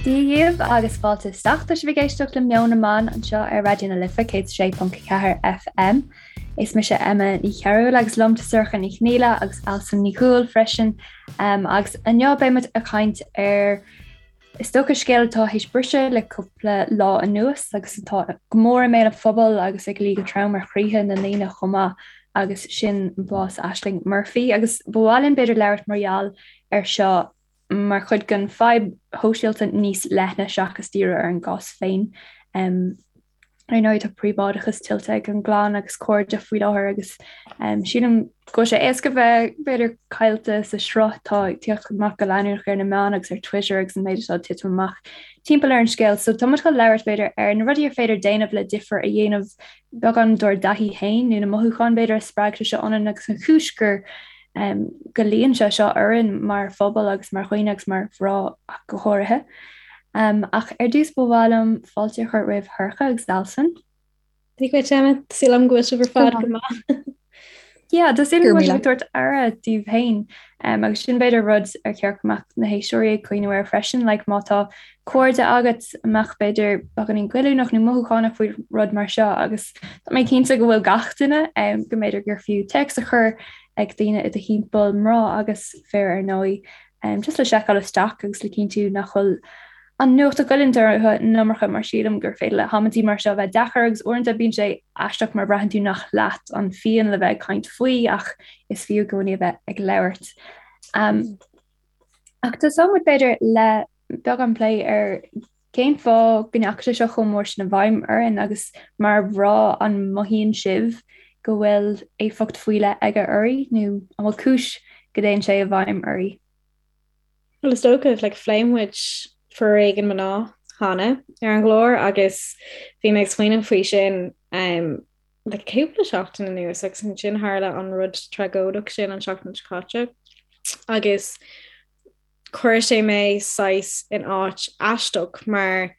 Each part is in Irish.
Dia dhaoibh agus fáilte isteach. Tá sibh ag éisteacht le Meon na mBan anseo ar Raidió na Life 106.4 FM. Is mise Emma Ní Chearúil agus liom tá Sorcha Ní Chonghaile agus Alison Ní Dhubhghaill freisin. Um, agus inniu beidh muid ag caint ar Is dócha scéal atá théis briseadh le cúpla lá anuas agus atá go mór i mbéal an phobail agus ag luí go trom ar chroíthe na ndaoine chomh maith agus sin bás Ashling Murphy. Agus ba mhaith linn b'fhéidir labhairt mar gheall ar seo mar chuid den fadhb shóisialta níos leithne seachas díriú ar an gcás féin. Ar ndóigh, tá príobháideachas tuillte ag an gclann agus cairde faoi láthair agus sílim go bhfuil sé éasca bheith, b'fhéidir, caillte sa sruth atá ag tíocht amach go leanúnach ar na meáin agus ar Twitter agus an méid atá ag titim amach timpeall ar an scéal. So tá muid chun labhairt, b'fhéidir, ar na rudaí ar féidir déanamh le difear a dhéanamh beagán dár dtaithí féin nó na mothúcháin, b'fhéidir, a spreag sé seo ionainn agus an chúis gur go luíonn sé seo orainn mar phobal agus mar dhaoine agus mar mhná ach go háirithe. Ach ar dtús ba mhaith liom fáilte a chur roimh Shorcha agus Alison. Dia dhuit Emma, tá súil agam go bhfuil sibh ar fad go maith. Yeah, tá súil agam go bhfuil sibh ag tabhairt aire daoibh féin agus sin b'fhéidir rud ar cheart go mbeadh na héisteoirí ag cuimhneamh air freisin, like má tá cairde agat a mbeadh b'fhéidir beagáinín goilliúnach nó mothúchánach faoi rud mar seo agus tá mé cinnte go bhfuil gach duine go mb'fhéidir gur fiú téacs a chur ag daoine i do thimpeall, mná agus fir ar ndóigh, just le seiceáil isteach agus le cinntiú nach bhfuil an nuacht ag goilliúint orthu an iomarca mar sílim gur féidir le hamantaí mar seo bheith deacair agus uaireanta bíonn sé aisteach mar braitheann tú nach leat an phian le bheith ag caint faoi ach is fiú i gcónaí a bheith ag labhairt. Ach tosóidh muid b'fhéidir le beagán plé ar cén fáth go ndeachaigh sé seo chomh mór sin i bhfeidhm orainn agus mar mhná an mothaíonn sibh go bhfuil éifeacht faoi leith aige oraibh nó an bhfuil cúis go dtéann sé i bhfeidhm oraibh? Bhuel is dócha, like, phléigh muid foréigean mná cheana ar an gclár agus bhí mé ag smaoineamh faoi sin um, le cúpla seachtain anuas agus ansin tharla an rud tragóideach sin an seachtain seo caite agus chuir sé mé saghas in áit aisteach mar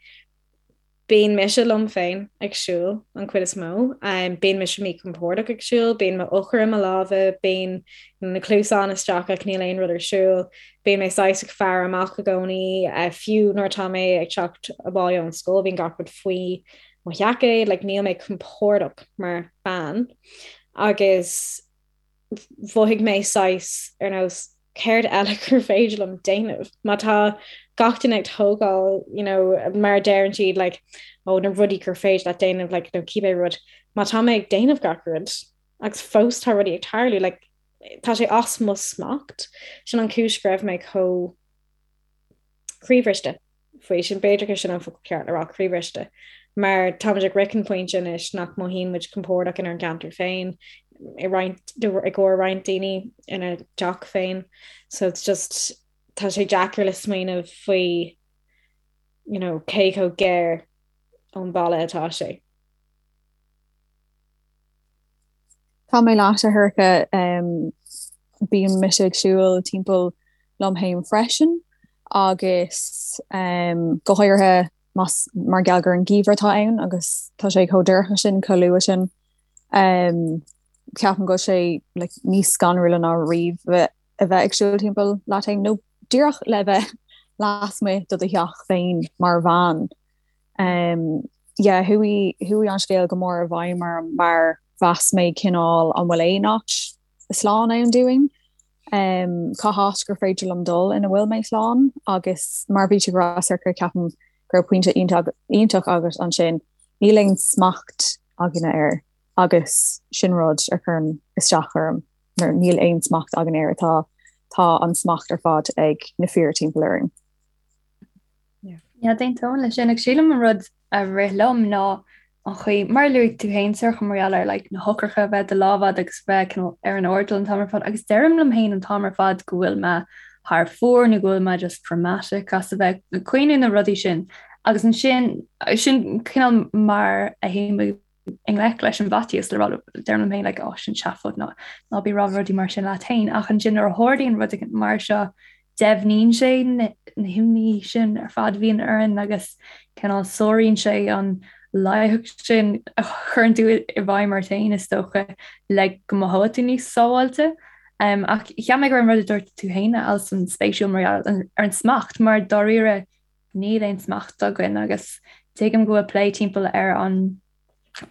bíonn mise liom féin ag siúl an chuid is mó, bíonn mise míchompordach ag siúl, bíonn m'eochair i mo lámha, bíonn na cluasáin isteach ach níl aon rud ar siúl, bíonn mé saghas ag faire amach i gcónaí, fiú nuair atá mé ag teacht abhaile ón scoil bíonn gach rud faoi mo sheaicéad, like níl mé compordach mar bean agus mhothaigh mé saghas ar nós céard eile gur féidir liom déanamh má tá gach duine ag tógáil you know, mar a deireann siad like, ó na rudaí gur féidir leat déanamh like, nó cibé rud má tá mé ag déanamh gach rud agus fós tá rudaí ag tarlú like, tá sé as mo smacht sin an chúis go raibh mé chomh croíbhriste. faoi sin. B'fhéidir gur sin an focal ceart le rá, croíbhriste. Mar táimid ag sroicheadh an pointe anois nach mothaíonn muid compordach inár gceantar féin, i roinnt, i gcomhair roinnt daoine ina dteach féin. So it's just, tá sé deacair le smaoineamh faoi, you know, cé chomh gar ón bhaile atá sé. Tá mé leat, a Shorcha. Bíonn mise ag siúl timpeall liom féin freisin agus go háirithe más mar gheall gur an geimhreadh atá ann agus tá sé chomh dorcha sin, chomh luath sin. Ceapaim go bhfuil sé like níos scanrúla ná riamh a bheith ag siúl timpeall leat féin nó díreach le bheith lasmuigh de do theach féin mar bhean. Yeah, chuaigh, chuaigh an scéal go mór i bhfeidhm orm mar mheas mé cineál an bhfuil aon áit slán ann dúinn? Cá háit gur féidir liom dul ina bhfuil mé slán? Agus mar bhí tú ag rá, Sorcha, ceapaim go raibh pointe iontach, iontach agat ansin, níl aon smacht againne air agus sin rud a chuireann isteach orm mar níl aon smacht againn air, tá, tá an smacht ar fad ag na fir timpeall orainn. Yeah, d'aontóinn leis sin. Agus sílim an rud a rith liom ná an chaoi, mar a luaigh tú féin, Sorcha, mar gheall ar like, na heochracha a bheith i do lámh agat agus bheith cineál ar an airdeall an t-am ar fad. Agus deirim liom féin an t-am ar fad go bhfuil mé thar fóir nó go bhfuil mé just dramatic as a bheith ag cuimhneamh na rudaí sin. Agus ansin, sin cineál mar a théim i ngleic leis an bhfaitíos le rá deirim liom féin like oh sin seafóid ná ná bí ag rá rudaí mar sin leat féin ach ansin nuair a tharlaíonn rud éigin mar seo deimhníonn sé na himní sin ar fad a bhíonn orainn agus cineál sáraíonn sé an laigeacht sin a chuireann tú i bhfeidhm ort féin is dócha le go mothóidh tú níos sábháilte. Um, ach cheap mé go raibh an rud a dúirt tú féin Alison spéisiúil mar ar an smacht mar dáiríre. Níl aon smacht againn agus tuigim go bhfuil plé timpeall ar an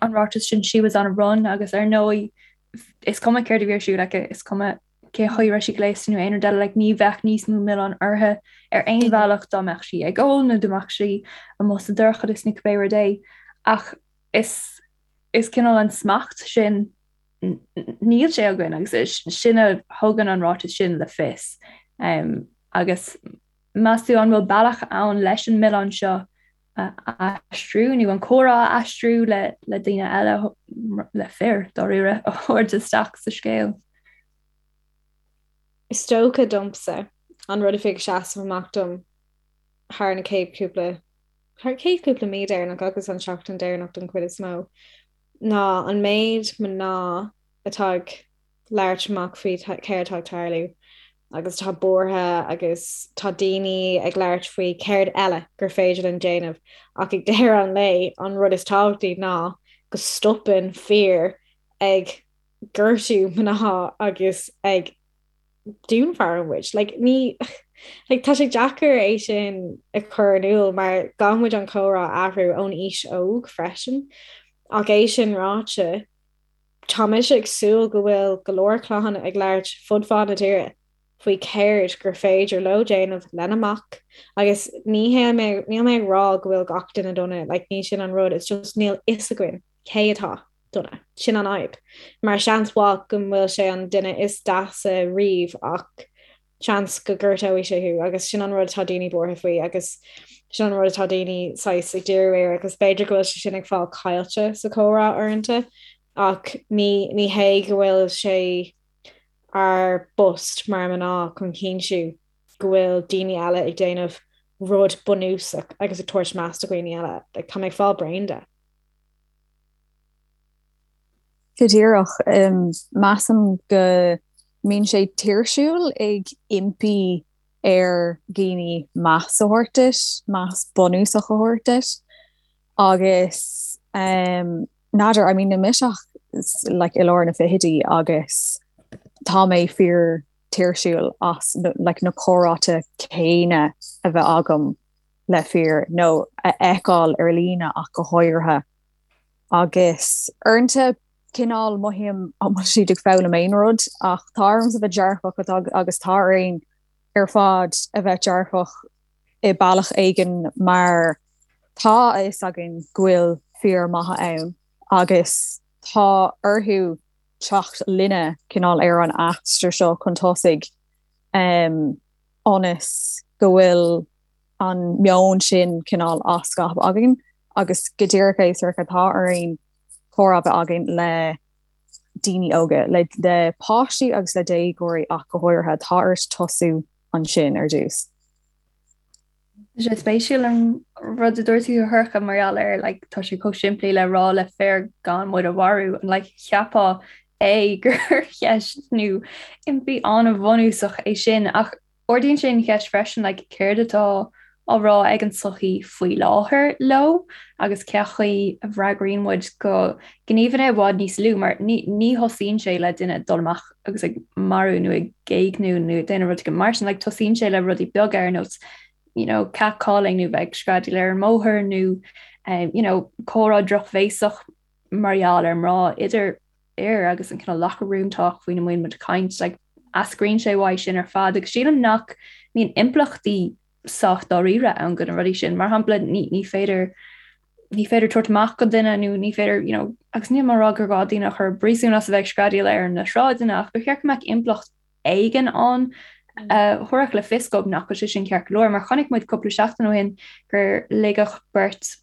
an ráiteas sin 'she was on a run' agus ar ndóigh is cuma céard a bhí ar siúl aici, is cuma cén chaoi a raibh sí gléasta nó aon rud eile, like ní bheadh níos mó milleán uirthi ar aon bhealach dá mbeadh sí ag ól nó dá mbeadh sí amuigh sa dorchadas nó cibé rud é. Ach is is cineál an smacht sin níl sé againn agus sin a thugann an ráiteas sin le fios. Um, agus meas tú an bhfuil bealach ann leis an milleán seo a aistriú nó an comhrá a aistriú le le daoine eile le fir dáiríre a thabhairt isteach sa scéal. Is dócha domsa an rud a bhí ag seasamh amach dom thar na chéad cúpla thar chéad cúpla mí deireanach agus an seachtain deireanach don chuid is mó ná an méid mná atá ag labhairt amach faoi céard atá ag tarlú agus atá buartha agus tá daoine ag labhairt faoi céard eile gur féidir linn déanamh ach ag deireadh an lae an rud is tábhachtaí ná go stopann fir ag gortú mná agus ag dúnmharú muid. Like, ní like, tá sé deacair é sin a chur in iúl mar caithfidh muid an comhrá a athrú ón aois óg freisin. Ach é sin ráite, Tá mise ag súil go bhfuil go leor clann ag labhairt fud fad na tíre faoi céard gur féidir leo déanamh lena mac agus ní hé níl mé ag rá go bhfuil gach duine dona, like ní sin an rud, it's just níl fhios againn cé atá dona, sin an fhadhb. Mar seans mhaith go bhfuil sé an duine is deasa riamh ach seans go gortóidh sé thú agus sin an rud atá daoine buartha faoi agus sin an rud atá daoine saghas ag díriú air agus b'fhéidir go bhfuil sé sin ag fáil caillte sa chomhrá uaireanta ach ní ní hé go bhfuil sé ár bpost mar mná chun cinntiú go bhfuil daoine eile ag déanamh rud bunúsach agus ag tabhairt meas do dhaoine eile. Like, tá mé ag fáil bréan de. Go díreach. Measaim go mbíonn sé tuirsiúil ag impí ar dhaoine meas a thabhairt duit, meas bunúsach a thabhairt duit. Agus n'fheadar, I mean níl mise ach like i lár na fichidí agus tá mé fíor tuirsiúil as like na comhráite céanna a bheith agam le fir nó a fheiceáil ar líne ach go háirithe. Agus uaireanta cineál mothaím an bhfuil siad ag foghlaim aon rud ach tá ormsa bheith dearfach agus tá orainn ar fad a bheith dearfach i bealach éigin mar tá a fhios againn go bhfuil fir maithe ann agus tá orthu teacht linne cineál ar an aistear seo chun tosaigh ionas go bhfuil an meon sin cineál á scaipeadh againn agus go díreach é Sorcha tá orainn comhrá a bheith againn le daoine óga, le le páistí agus le déagóirí ach go háirithe, tá ort tosú ansin ar dtús. Tá sé spéisiúil an rud a dúirt tú a Shorcha mar gheall ar like, tá sé chomh simplí le rá le fir gan muid a mharú an like, cheapfá é gur cheist nó impí an-bhunúsach é sin ach Ardaíonn sé an cheist freisin like céard atá á rá ag an tsochaí faoi láthair leo agus cén chaoi a bhfreagraíonn muid go gníomhanna i bhfad níos lú mar ní ní thosaíonn sé le duine dul amach agus ag marú nó ag éigniú nó ag déanamh rud mar sin like tosaíonn sé le rudaí beaga ar nós you know catcalling nó bheith ag screadaíl ar an mbóthar nó um, you know comhrá drochbhéasach mar gheall ar mná idir fhir agus an cineál locker room talk faoina mbíonn muid ag caint, like, eascraíonn sé uaidh sin ar fad agus sílim nach mbíonn impleachtaí sách dáiríre ann do na rudaí sin. Mar shampla, ní, ní féidir ní féidir tabhairt amach go duine nó ní féidir, you know, agus níl mé ag rá gur gá daoine a chur i bpríosún as a bheith ag screadaíl ar na sráideanna ach ba cheart go mbeadh impleacht éigin ann a thabharfadh le fios dóibh nach bhfuil sé sin ceart go leor. Mar chonaic muid cúpla seachtain ó shin gur ligeadh beirt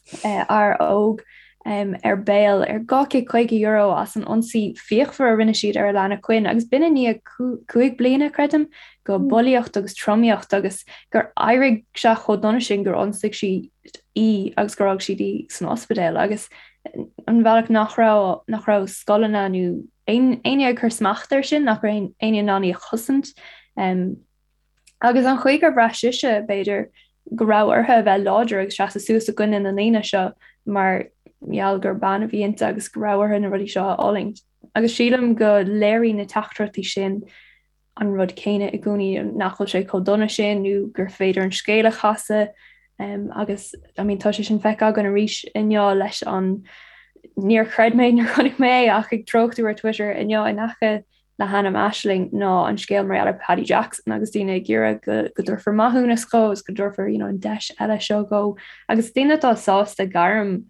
fhear óg ar bail ar €250 as an ionsaí fíochmhar a rinne siad ar Alana Quinn agus b'in i ndiaidh 5 bliana, creidim, de bhulaíocht agus tromaíocht agus gur éirigh sé chomh dona sin gur ionsaigh siad í agus gur fhág siad í san ospidéal agus an bhealach nach raibh nach raibh scoileanna nó éinne ag cur smacht air sin, nach raibh éinne in ann í a chosaint. Agus an chaoi gur bhraith sise, b'fhéidir, go raibh uirthi a bheith láidir agus seasamh suas i gcoinne na ndaoine seo mar gheall gur bean a bhí inti agus go raibh uirthi na rudaí seo a fhulaingt. Agus sílim go léiríonn na teachtaireachtaí sin. an rud céanna i gcónaí, nach bhfuil sé chomh dona sin nó gur féidir an scéal a chasadh agus I mean tá sé sin feicthe againn arís inniu leis an níor chreid mé nuair a chonaic mé é ach ag treochtú ar Twitter inniu in aice le hainm Aisling ná an scéal mar gheall ar Paddy Jackson agus daoine ag iarraidh go go dtabharfar maithiúnas dhó agus go dtabharfar you know, an deis eile seo dhó agus daoine atá sásta gairm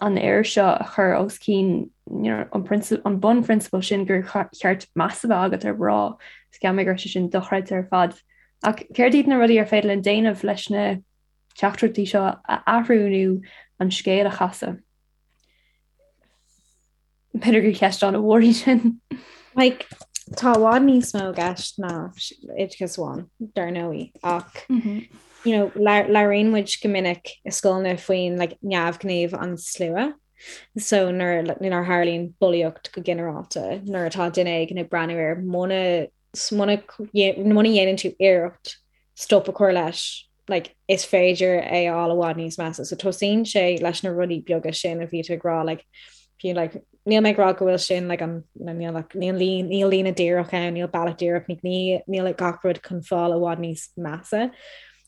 an fhir seo a chur os cionn you know, an, an bunphrionsabal sin gur cheart meas a bheith agat ar mhná. Is cheap mé go raibh sé sin dochreidte ar fad. Ach céard iad na rudaí ar féidir linn déanamh leis na teachtaireachtaí seo a athrú nó an scéal a chasadh? B'fhéidir gur cheist an-mhór í sin. Like, tá i bhfad níos mó i gceist ná oideachas amháin, dar ndóigh, ach mm -hmm. you know, labhraíonn muid go minic i scoileanna faoin like, neamhghníomh an slua. So nuair nuair a tharlaíonn bulaíocht go ginearálta, nuair atá duine éigin ag breathnú air muna muna dhéanann tú iarracht stop a chur leis, like, is féidir é a fháil i bhfad níos measa. So tosaíonn sé leis na rudaí beaga sin a bhí tú ag rá, like, fiú, like, níl mé ag rá go bhfuil sin like, an, níl, like, níl, níl líne díreach ann, níl bealach díreach, ní, níl like, gach rud chun fáil i bhfad níos measa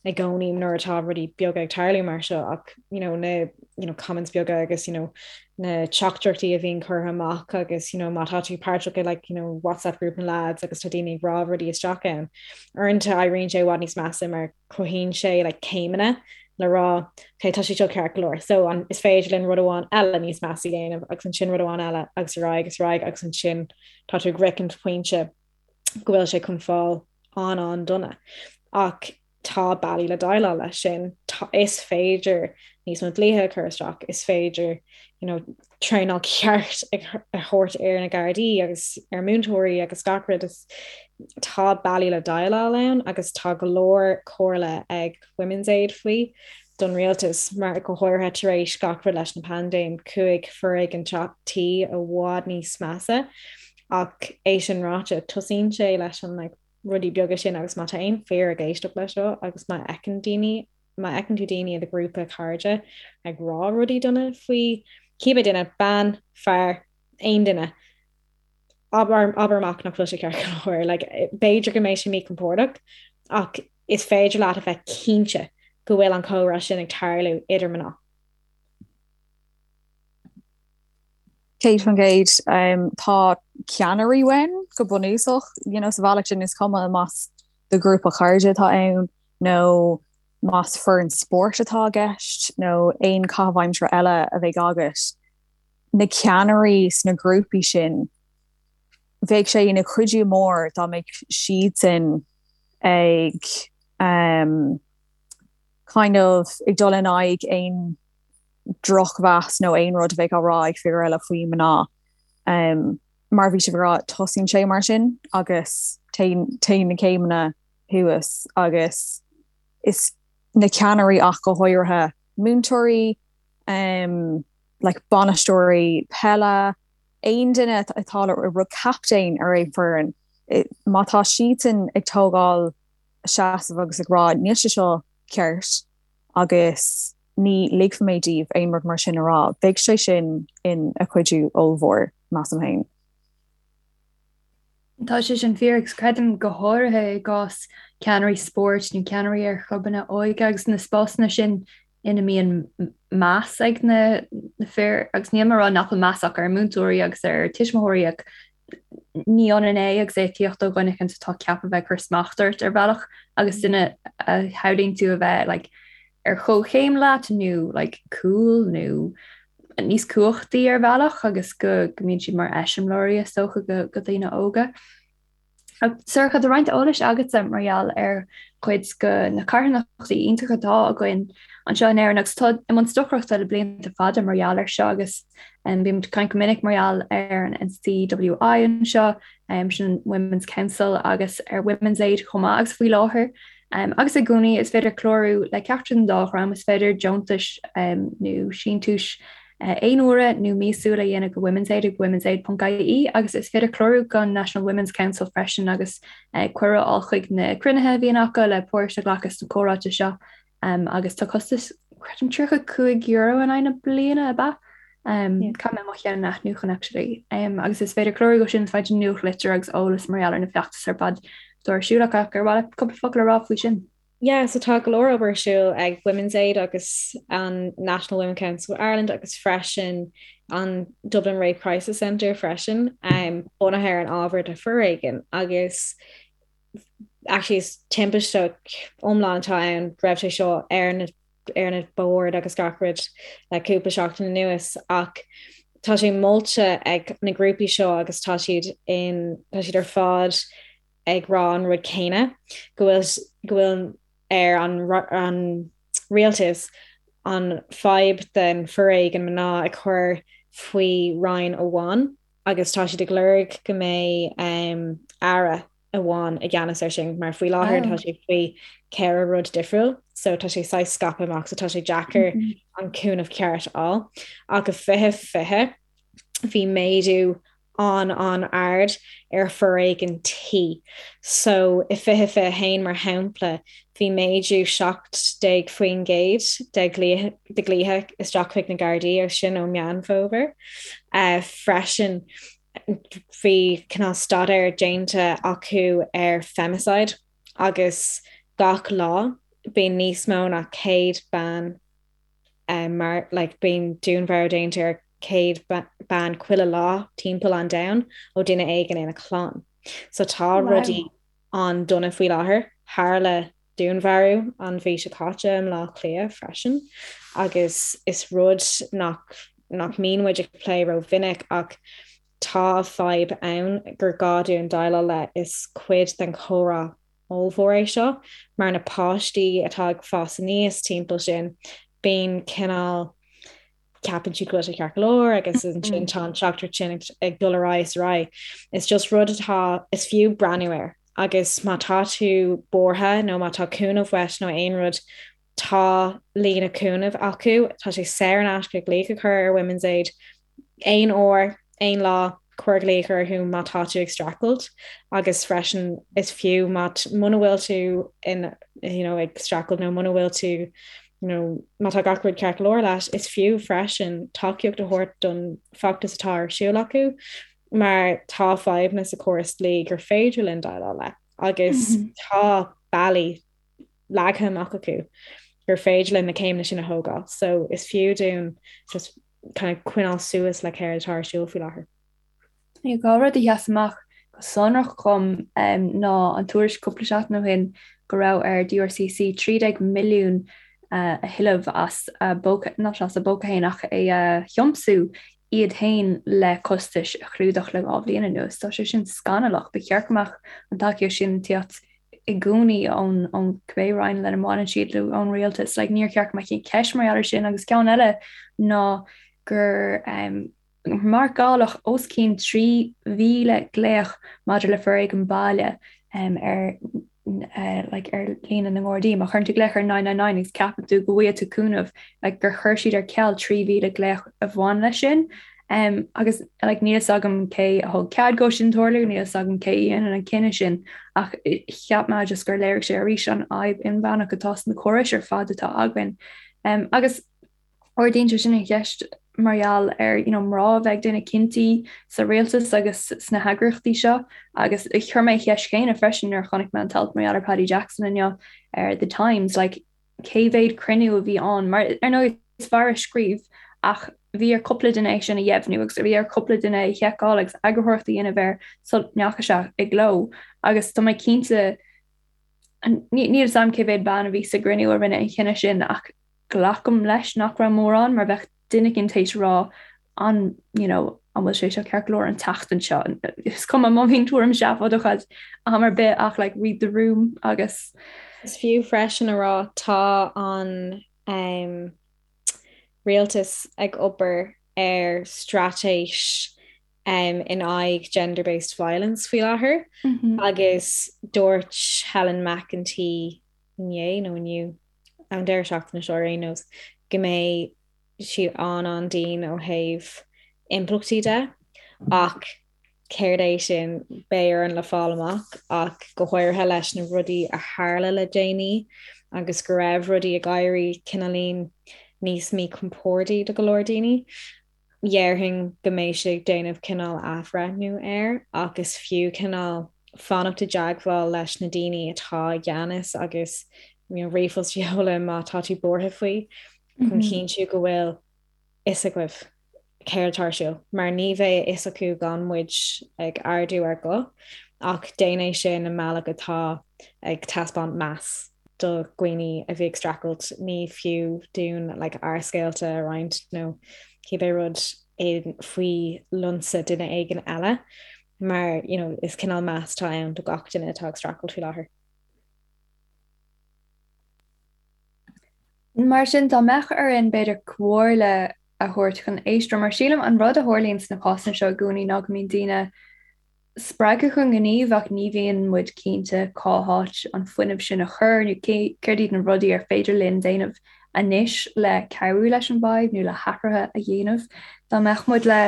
i gcónaí nuair atá rudaí beaga ag tarlú mar seo ach you know, na you know, comments beaga agus you know, na teachtaireachtaí a bhíonn curtha amach agus you know, má tá tú páirteach i like, you know, WhatsApp group na lads agus tá daoine ag rá rudaí isteach ann. Uaireanta éiríonn sé i bhfad níos measa mar cruthaíonn sé like, céimeanna le rá okay, tá sé seo ceart go leor. So an, is féidir linn rud amháin eile níos measa a dhéanamh agus ansin rud amháin eile agus ar aghaidh agus ar aghaidh agus ansin tá tú ag sroichint pointe go bhfuil sé chun fáil an-an-dona. Ach tá bealaí le déileáil leis sin. Is féidir níos mó dlíthe a chur isteach, is féidir you know, traenáil ceart a thabhairt ar na Gardaí agus ar múinteoirí agus gach rud. Is tá bealaí le déileáil ann agus tá go leor comhairle ag Women's Aid faoi don rialtas mar go háirithe tar éis gach rud leis na paindéim chuaigh foréigean tí i bhfad níos measa ach é sin ráite tosaíonn sé leis an like, rudaí beaga sin agus má tá aon fir ag éisteacht leis seo agus má fheiceann daoine, má fheiceann tú daoine i do ghrúpa cairde ag rá rudaí dona faoi cibé duine, bean, fear, aon duine, abair, abair amach nach bhfuil sé ceart go leor. Like, b'fhéidir go mbeidh sé míchompordach ach is féidir leat a bheith cinnte go bhfuil an comhrá sin ag tarlú idir mná. 100%. Tá ceannairí uainn go bunúsach, you know, sa bhealach sin is cuma más do ghrúpa cairde atá ann nó más foireann spóirt atá i gceist nó aon chaitheamh aimsire eile a bheidh agat, na ceannairí sna grúpaí sin, bheadh sé ina chuidiú mór dá mbeadh siadsan ag um, kind of ag dul in aghaidh aon drochmheas nó aon rud a bheadh á rá ag fir eile faoi mná. Mar a bhí sibh ag rá, tosaíonn sé mar sin agus téann na céimeanna thuas agus is na ceannairí ach go háirithe múinteoirí, like bainisteoirí peile, aon duine atá le rud captaen ar aon foireann, má tá siadsan ag tógáil seasamh agus ag rá níl sé seo ceart agus ní ligfidh mé daoibh aon rud mar sin a rá. Bheadh sé sin ina chuidiú ollmhór, measaim féin. Tá sé sin fíor agus creidim go háirithe i gcás ceannairí spóirt nó ceannairí ar chlubanna óige agus na spásanna sin ina mbíonn meas ag na fir agus níl mé ag rá nach bhfuil meas acu ar múinteoirí agus ar tuismitheoirí ach ní ionann é agus é ag tíocht ó dhuine éicint atá ceaptha bheith ag cur smacht ort ar bhealach agus duine a shamhlaíonn tú a bheith like, ar chomhchéim leat nó like, cool nó níos cumhachtaí ar bhealach agus go go mbíonn siad mar eiseamláirí is dócha go, go daoine óga. Sorcha, tá roinnt eolais agatsa mar gheall ar chuid de na carthanachtaí iontacha atá againn anseo in Éirinn agus atá i mbun stocaireachta le blianta fada mar gheall air seo agus bímid ag caint go minic mar gheall ar an NCWI anseo, sin Women's Council agus ar Women's Aid chomh maith agus faoi láthair agus i gcónaí is féidir clárú le ceachtar den dá dhream, is féidir deontais nó síntiúis aon uaire nó míosúil a dhéanamh go Women's Aid ag womensaid.ie agus is féidir clárú don National Women's Council freisin agus cuireadh a fháil chuig na cruinnithe a bhíonn acu le páirt a ghlacadh sna comhráite seo agus tá costas creidim €35 in aghaidh na bliana ab ea? Caithfidh mé mo cheann a athnuachan actually. Agus is féidir clárú dó sin is féidir nuachtlitir agus eolas mar gheall ar na feachtais ar fad. atá ar siúl acu ach ar mhaith leat cúpla focal a rá faoi sin? Yeah, so tá go leor obair ar siúl ag Women's Aid agus an National Women Council of Ireland agus freisin an Dublin Rape Crisis Centre freisin, um, bunaithe ar an ábhar de foréigean agus actually is timpiste iomlán atá ann raibh sé seo ar na ar na boird agus gach rud le cúpla seachtain anuas ach tá sé molta ag na grúpaí seo agus tá siad in tá siad ar fad ag rá an rud céanna, go bhfuil go bhfuil ar an an rialtas an fadhb den foréigean mná a chur faoi roinn amháin agus tá siad ag lorg go mbeidh um, aire amháin i gceannas ar sin mar faoi láthair tá sé faoi ceithre rud difriúil so tá sé saghas scaipthe amach so tá sé deacair mm -hmm. an cúnamh ceart a fháil ach i 2020 bhí méadú an-an-ard ar foréigean tí. So i 2021 mar shampla bhí méadú 17% de ghlaoithe isteach chuig na Gardaí agus sin ó Meán Fómhair. Freisin bhí cineál staidéar déanta acu ar femicide agus gach lá bíonn níos mó ná 100 bean mar like bíonn dúnmharú déanta ar 100 bean chuile lá timpeall an domhain ó duine éigin ina clann. So tá rudaí an-dona faoi láthair. Tharla dúnmharú an mhí seo caite i mBleá Cliath freisin agus is rud nach nach mbíonn muid ag plé rómhinic ach tá fadhb ann gur gá dúinn déileáil le is cuid den chomhrá ollmhór é seo mar na páistí atá ag fás aníos timpeall sin, bíonn cineál, ceapann siad go bhfuil sé ceart go leor agus ansin tá an teachtaireacht sin ag dul ar aghaidh is ar aghaidh. Is just rud atá, is fiú breathnú air agus má tá tú buartha nó má tá cúnamh uait nó aon rud, tá líne cúnaimh acu, tá sé saor in aisce glaoch a chur ar Women's Aid aon uair, aon lá, cuir glaoch orthu má tá tú ag streachailt agus freisin is fiú má muna bhfuil tú in you know, ag streachailt nó muna bhfuil tú you know, má tá gach rud ceart go leor leat, is fiú freisin tacaíocht a thabhairt don feachtas atá ar siúl acu mar tá fadhbanna sa chóras dlí gur féidir linn déileáil le agus mm -hmm. tá bealaí leagtha amach acu gur féidir linn na céimeanna sin a thógáil. So is fiú dúinn just kind of coinneáil suas le céard atá ar siúl faoi láthair. Dhá rud a sheas amach go sonrach dhom ná an tuairisc cúpla seachtain ó shin go raibh ar DRCC 13 milliún a thuilleamh as a bpóca, not as a bpóca féin ach é a thiomsú iad féin le costais a chlúdach le dhá bhliain anuas. Tá sé sin scannalach. Ba cheart go mbeadh an tacaíocht sin ag tíocht i gcónaí ón ón cibé roinn lena mbaineann siad nó ón rialtas. Like, níor cheart go mbeadh aon cheist mar gheall air sin agus ceann eile ná gur um, marcáladh os cionn 3,000 glaoch maidir le foréigean baile um, ar uh, like, ar líne na nGardaí. Má chuireann tú glaoch ar 999 agus ceapann tú go bhfaighidh tú cúnamh like, gur chuir siad ar ceal 3,000 glaoch a bhain leis sin. Um, agus like, níl fhios agam cé a thug cead dó sin tarlú, níl fhios agam cé a dhéanann an cinneadh sin, ach cheap mé just gur léirigh sé arís an fhadhb inmheánach atá sna córais ar fad atá againn. Um, agus ardaíonn sé sin an cheist mar gheall ar you know, mná a bheith ag déanamh cinntí sa rialtas agus sna heagraíochtaí seo agus chuir mé an cheist chéanna freisin nuair a chonaic mé an t-alt mar gheall ar Paddy Jackson inniu ar The Times, like, cé mhéad cruinniú a bhí ann, mar ar ndóigh is fear a scríobh ach bhí ar cúpla duine é sin a dheimhniú agus bhí ar cúpla duine é a sheiceáil agus eagarthóireacht a dhéanamh air sula ndeachaigh sé i gcló agus tá mé cinnte níl fhios agam cé mhéad bean a bhí sa gcruinniú a rinne an chinneadh sin ach glacaim leis nach raibh mórán mar bheadh duine éigin tar éis rá an you know an bhfuil sé seo ceart go leor an tseachtain seo. Is cuma má bhíonn tuairim seafóideach agat am ar bith ach like read the room agus. Is fiú freisin a rá tá an um, rialtas ag obair ar straitéis um, in aghaidh gender-based violence faoi láthair mm -hmm. agus dúirt Helen McEntee inné nó inniu an deireadh seachtaine seo ar aon nós go mbeidh siad an-an-dian ó thaobh impleachtaí de ach céard é sin beidh orainn le fáil amach ach go háirithe leis na rudaí a tharla le déanaí agus go raibh rudaí ag éirí cineáilín níos míchompordaí do go leor daoine. Dhéarfainn go mbeidh siad ag déanamh cineál athbhreithniú air ach is fiú cineál. fanacht i dteagmháil leis na daoine atá i gceannas agus you know, ríomhphost a sheoladh má tá tú buartha faoi chun cinntiú go bhfuil fhios agaibh céard atá ar siúl, mar ní bheidh a fhios acu gan muid ag ardú ár guth, ach déan é sin i mbealach atá ag taispeáint meas do dhaoine a bhí ag streachailt. Ní fiú dúinn like ár scéalta a roinnt nó cibé rud faoi lionsa duine éigin eile, mar you know is cineál meas atá ann do gach duine atá ag streachailt faoi láthair. Mar sin, dá mbeadh orainn, b'fhéidir, comhairle a thabhairt chun éisteoirí, mar sílim an rud a tharlaíonn sna cásanna seo i gcónaí ná go mbíonn daoine spreagtha chun gnímh ach ní bhíonn muid cinnte cá háit an fuinneamh sin a chur nó céard iad na rudaí ar féidir linn déanamh anois le cabhrú leis an bhfadhb nó le hathruithe a dhéanamh. Dá mbeadh muid le,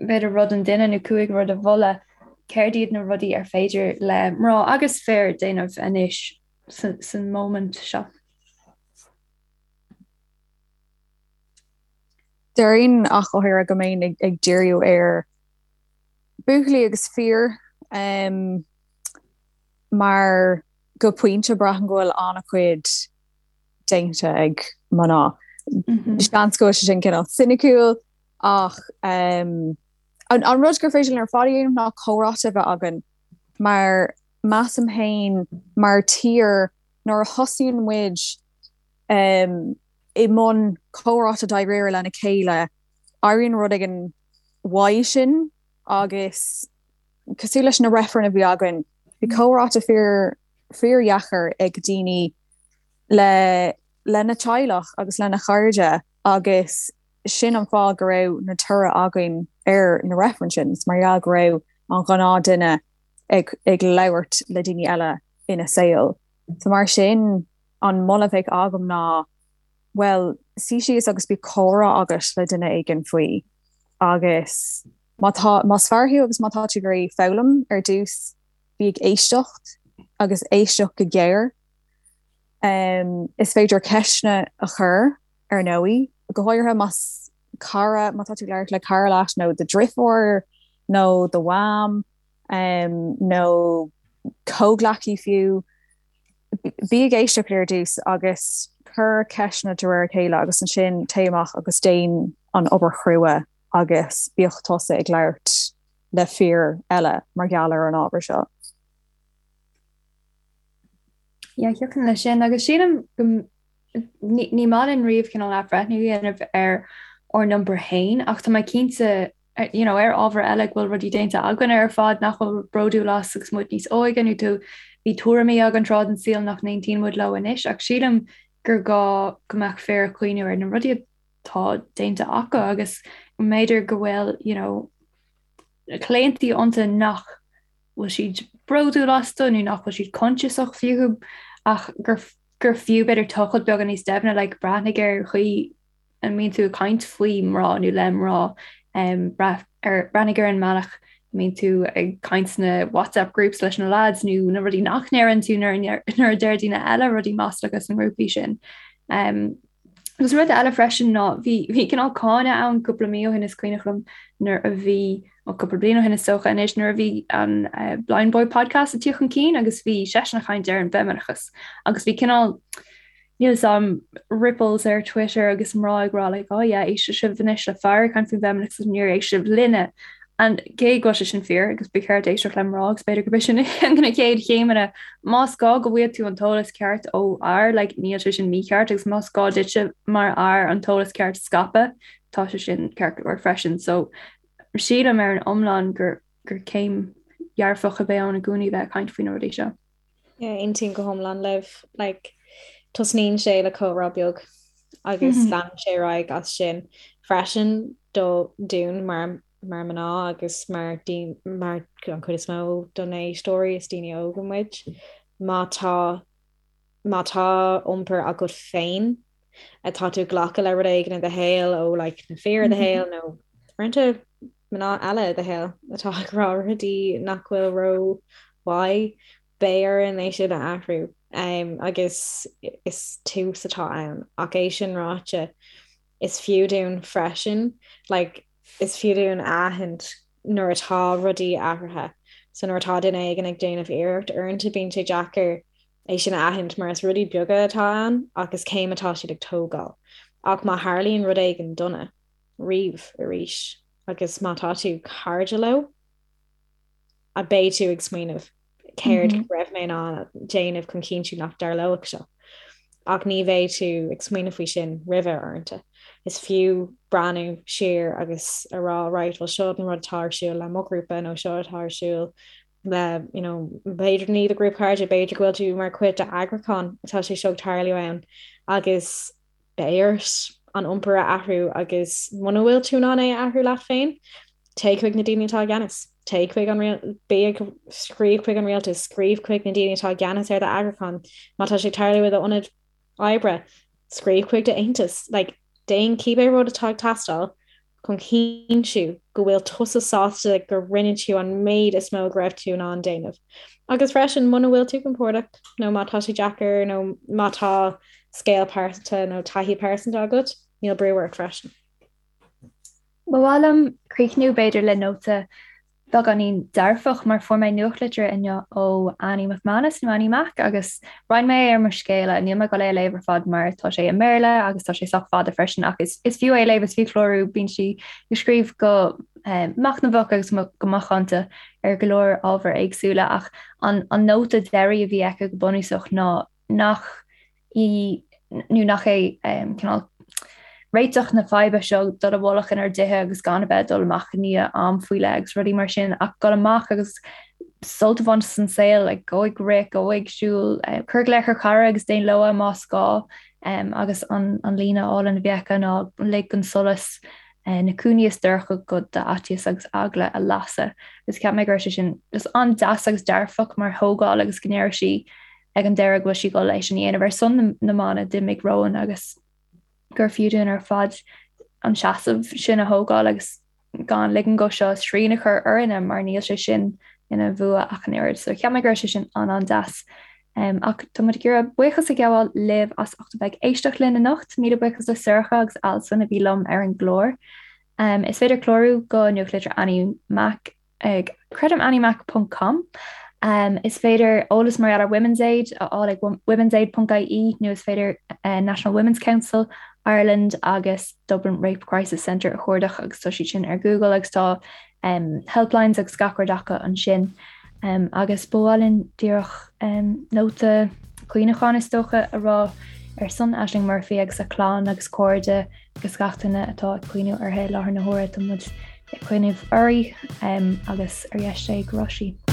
b'fhéidir, rud an duine nó 5 rud a mholadh, céard iad na rudaí ar féidir le mná agus fir déanamh anois san móimint seo. Déarfainn ach go háirithe go mbeinn ag díriú ar buachaillí agus fir mar go pointe braithim go bhfuil an-chuid déanta ag mná. Seans go bhfuil sé sin cineál soiniciúil ach an rud gur féidir linn ar fad a dhéanamh ná comhráite a bheith againn mar measaim féin mar tír nuair a thosaíonn muid i mbun comhráite dáiríre lena chéile, éiríonn rud éigin uaidh sin agus cosúil leis na reifrinn a bhí againn, bhí comhráite fíor fíordheacair ag daoine le lena teaghlach agus lena chairde agus sin an fáth go raibh na toradh againn ar na reifrinn sin, is mar gheall go raibh an ghnáth duine ag ag labhairt le daoine eile ina saol. So mar sin an moladh a bheadh agam ná bhuel suigh síos agus bíodh comhrá agat le duine éigin faoi agus má tá más fear thú agus má tá tú ag iarraidh foghlaim ar dtús bí ag éisteacht agus éisteacht go géar. Um, is féidir ceisteanna a chur ar ndóigh, go háirithe más cara, má tá tú ag labhairt le cara leat nó do dhriofúr nó do mham nó comhghleacaí fiú, bí ag éisteacht ar dtús agus cuir ceisteanna de réir a chéile agus ansin téigh amach agus déan an obair chrua agus bíodh tusa ag labhairt le fir eile mar gheall ar an ábhar seo. Yeah, thiocfainn leis sin agus sílim go ní maith linn riamh cineál athbhreithniú a dhéanamh ar ár n-iompar féin ach tá mé cinnte you know, ar ábhar eile go bhfuil rudaí déanta againn ar fad nach bhfuil bródúil as agus muid níos óige nó tú bhí tuairimí againn tráth den saol nach n-aontaíonn muid leo anois ach sílim gur gá go mbeadh fir ag cuimhniú ar na rudaí atá déanta acu agus mb'fhéidir go bhfuil you know, claontaí iontu nach bhfuil siad bródúil astu nó nach bhfuil siad coinsiasach fúthu ach gur gur fiú b'fhéidir tochailt beagán níos doimhne like breathnaigh ar chaoi a mbíonn tú ag caint faoi mná nó le mná um, breath, ar, breathnaigh ar an mbealach a mbíonn tú ag caint sna WhatsApp groups leis na lads nó na rudaí nach ndeireann tú nuair nuair a deir daoine eile rudaí maslacha sna grúpaí sin. Um, Agus rud eile freisin ná bhí bhí cineál cáineadh ann cúpla mí ó shin is cuimhneach liom nuair a bhí ó cúpla bliain ó shin is dócha anois nuair a bhí an uh, Blindboy podcast ag tíocht chun cinn agus bhí seisean ag caint ar an bhfeimineachas agus bhí cineál níl 'fhios a'm ripples ar Twitter agus mná ag rá like oh yeah éistfidh sibh anois le fear ag caint faoin bhfeimineachas agus níor éist sibh linne And cé go bhfuil sé sin fíor agus ba cheart éisteacht le mná agus b'fhéidir gurb é sin na chéad chéimeanna. Más gá go bhfaighidh tú an t-eolas ceart ó fhear, like, níl sé sin mícheart agus más gá duitse mar fhear an t-eolas ceart a scaipeadh, tá sé sin ceart go leor freisin. So sílim ar an iomlán gur gur céim dhearfach a bheidh ann i gcónaí bheith ag caint faoi na rudaí seo. Yeah, aontaím go hiomlán libh. Like, tosnaíonn sé le comhrá beag agus mm -hmm. leanann sé ar aghaidh as sin freisin do dúinn mar mar mná agus mar mar an chuid is mó do na héisteoirí is daoine óga muid. Má tá má tá iompar agat féin atá tú ag glacadh le rud éigin i do shaol ó like, na fir i do shaol nó uaireanta mná eile i do shaol atá ag rá rudaí nach bhfuil ró-mhaith, beidh orainn é sin a athrú um, agus is tús atá ann. Ach é sin ráite, is fiú dúinn freisin, like, is fiú dúinn a aithint nuair atá rudaí athraithe. So nuair atá duine éigin ag déanamh iarracht, uaireanta bíonn sé deacair é sin a aithint mar is rudaí beaga atá ann ach is céim atá siad ag tógáil. Ach má tharlaíonn rud éigin dona riamh arís agus má tá tú cairde leo, a beidh tú ag smaoineamh céard go raibh mé in ann déanamh chun cinntiú nach dtarlódh seo. Ach ní bheidh tú ag smaoineamh faoi sin roimhe uaireanta. Is fiú breathnú siar agus a rá right, well seo an rud atá ar siúl le mo ghrúpa nó seo atá ar siúl le you know, b'fhéidir ní do ghrúpa cairde, b'fhéidir go bhfuil tú mar chuid d'eagrúchán atá sé seo ag tarlú ann agus beidh ort an iompar a athrú agus muna bhfuil tú in ann é a athrú leat féin, téigh chuig na daoine atá i gceannas. Téigh chuig an bí ag scríobh chuig an rialtas, scríobh chuig na daoine atá i gceannas ar d'eagrúchán. Má tá sé ag tarlú i d'ionad oibre, scríobh chuig d'aontas. Like, déan cibé rud atá ag teastáil chun cinntiú go bhfuil tusa sásta go rinne tú an méid is mó go raibh tú in ann déanamh. Agus freisin, muna bhfuil tú compordach nó má tá sé deacair nó má tá scéal pearsanta nó taithí pearsanta agat, níl brú ort freisin. Ba mhaith liom críochnú b'fhéidir le nóta beagáinín dearfach mar fuair mé nuachtlitir inniu ó Annie McManus nó Annie Mac agus roinn mé é ar mo scéala. Níl mé ag dul é a léamh ar fad mar tá sé i mBéarla agus tá sé sách fada freisin ach is is fiú é a léamh, is fiú clárú, bíonn sí ag scríobh go eh, machnamhach agus go macánta ar go leor ábhair éagsúla ach an an nóta deiridh a bhí aici go bunúsach ná nach í nó nach é cineál réiteach na faidhbe seo dul i bhfolach inár dtithe agus gan a bheith ag dul amach i ndiaidh am faoi leith agus rudaí mar sin ach dul amach agus sult a bhaint as an saol, like, gabh ag rith, gabh ag siúl, cuir glaoch ar chara agus déan logha más gá agus an an líne álainn a bhí aici ná lig don solas na cúinní is dorcha de d'fhaitíos agus eagla a lasadh. Agus cheap mé go raibh sé sin just an-deas agus dearfach mar thógáil agus go ndeir sí ag an deireadh go bhfuil sí ag dul é sin a dhéanamh ar son na mban a d'imigh romhainn agus gur fiú dúinn ar fad an seasamh sin a thógáil agus gan ligean dó seo srian a chur orainne mar níl sé sin ina bhua ach an oiread. So cheap mé go raibh sé sin an-an-deas. Um, ach tá muid ag iarraidh buíochas a ghabháil libh as ucht a bheith ag éisteacht linn anocht, míle buíochas le Sorcha agus Alison a bhí liom ar an gclár. Um, is féidir clárú go nuachtlitir Annie Mac ag creidim anniemac ponc com. Is féidir eolas mar gheall ar Women's Aid a fháil ag womensaid ponc ie nó is féidir National Women's Council Ireland agus Dublin Rape Crisis Centre a chuardach agus tá siad sin ar Google agus tá helplines agus gach rud acu ansin. Agus ba mhaith linn díreach nóta cuimhneacháin is dócha a rá ar son Ashling Murphy agus a clann agus cairde agus gach duine atá ag cuimhniú uirthi i láthair na huaire. Tá muid ag cuimhneamh uirthi agus ar dheis Dé go raibh sí.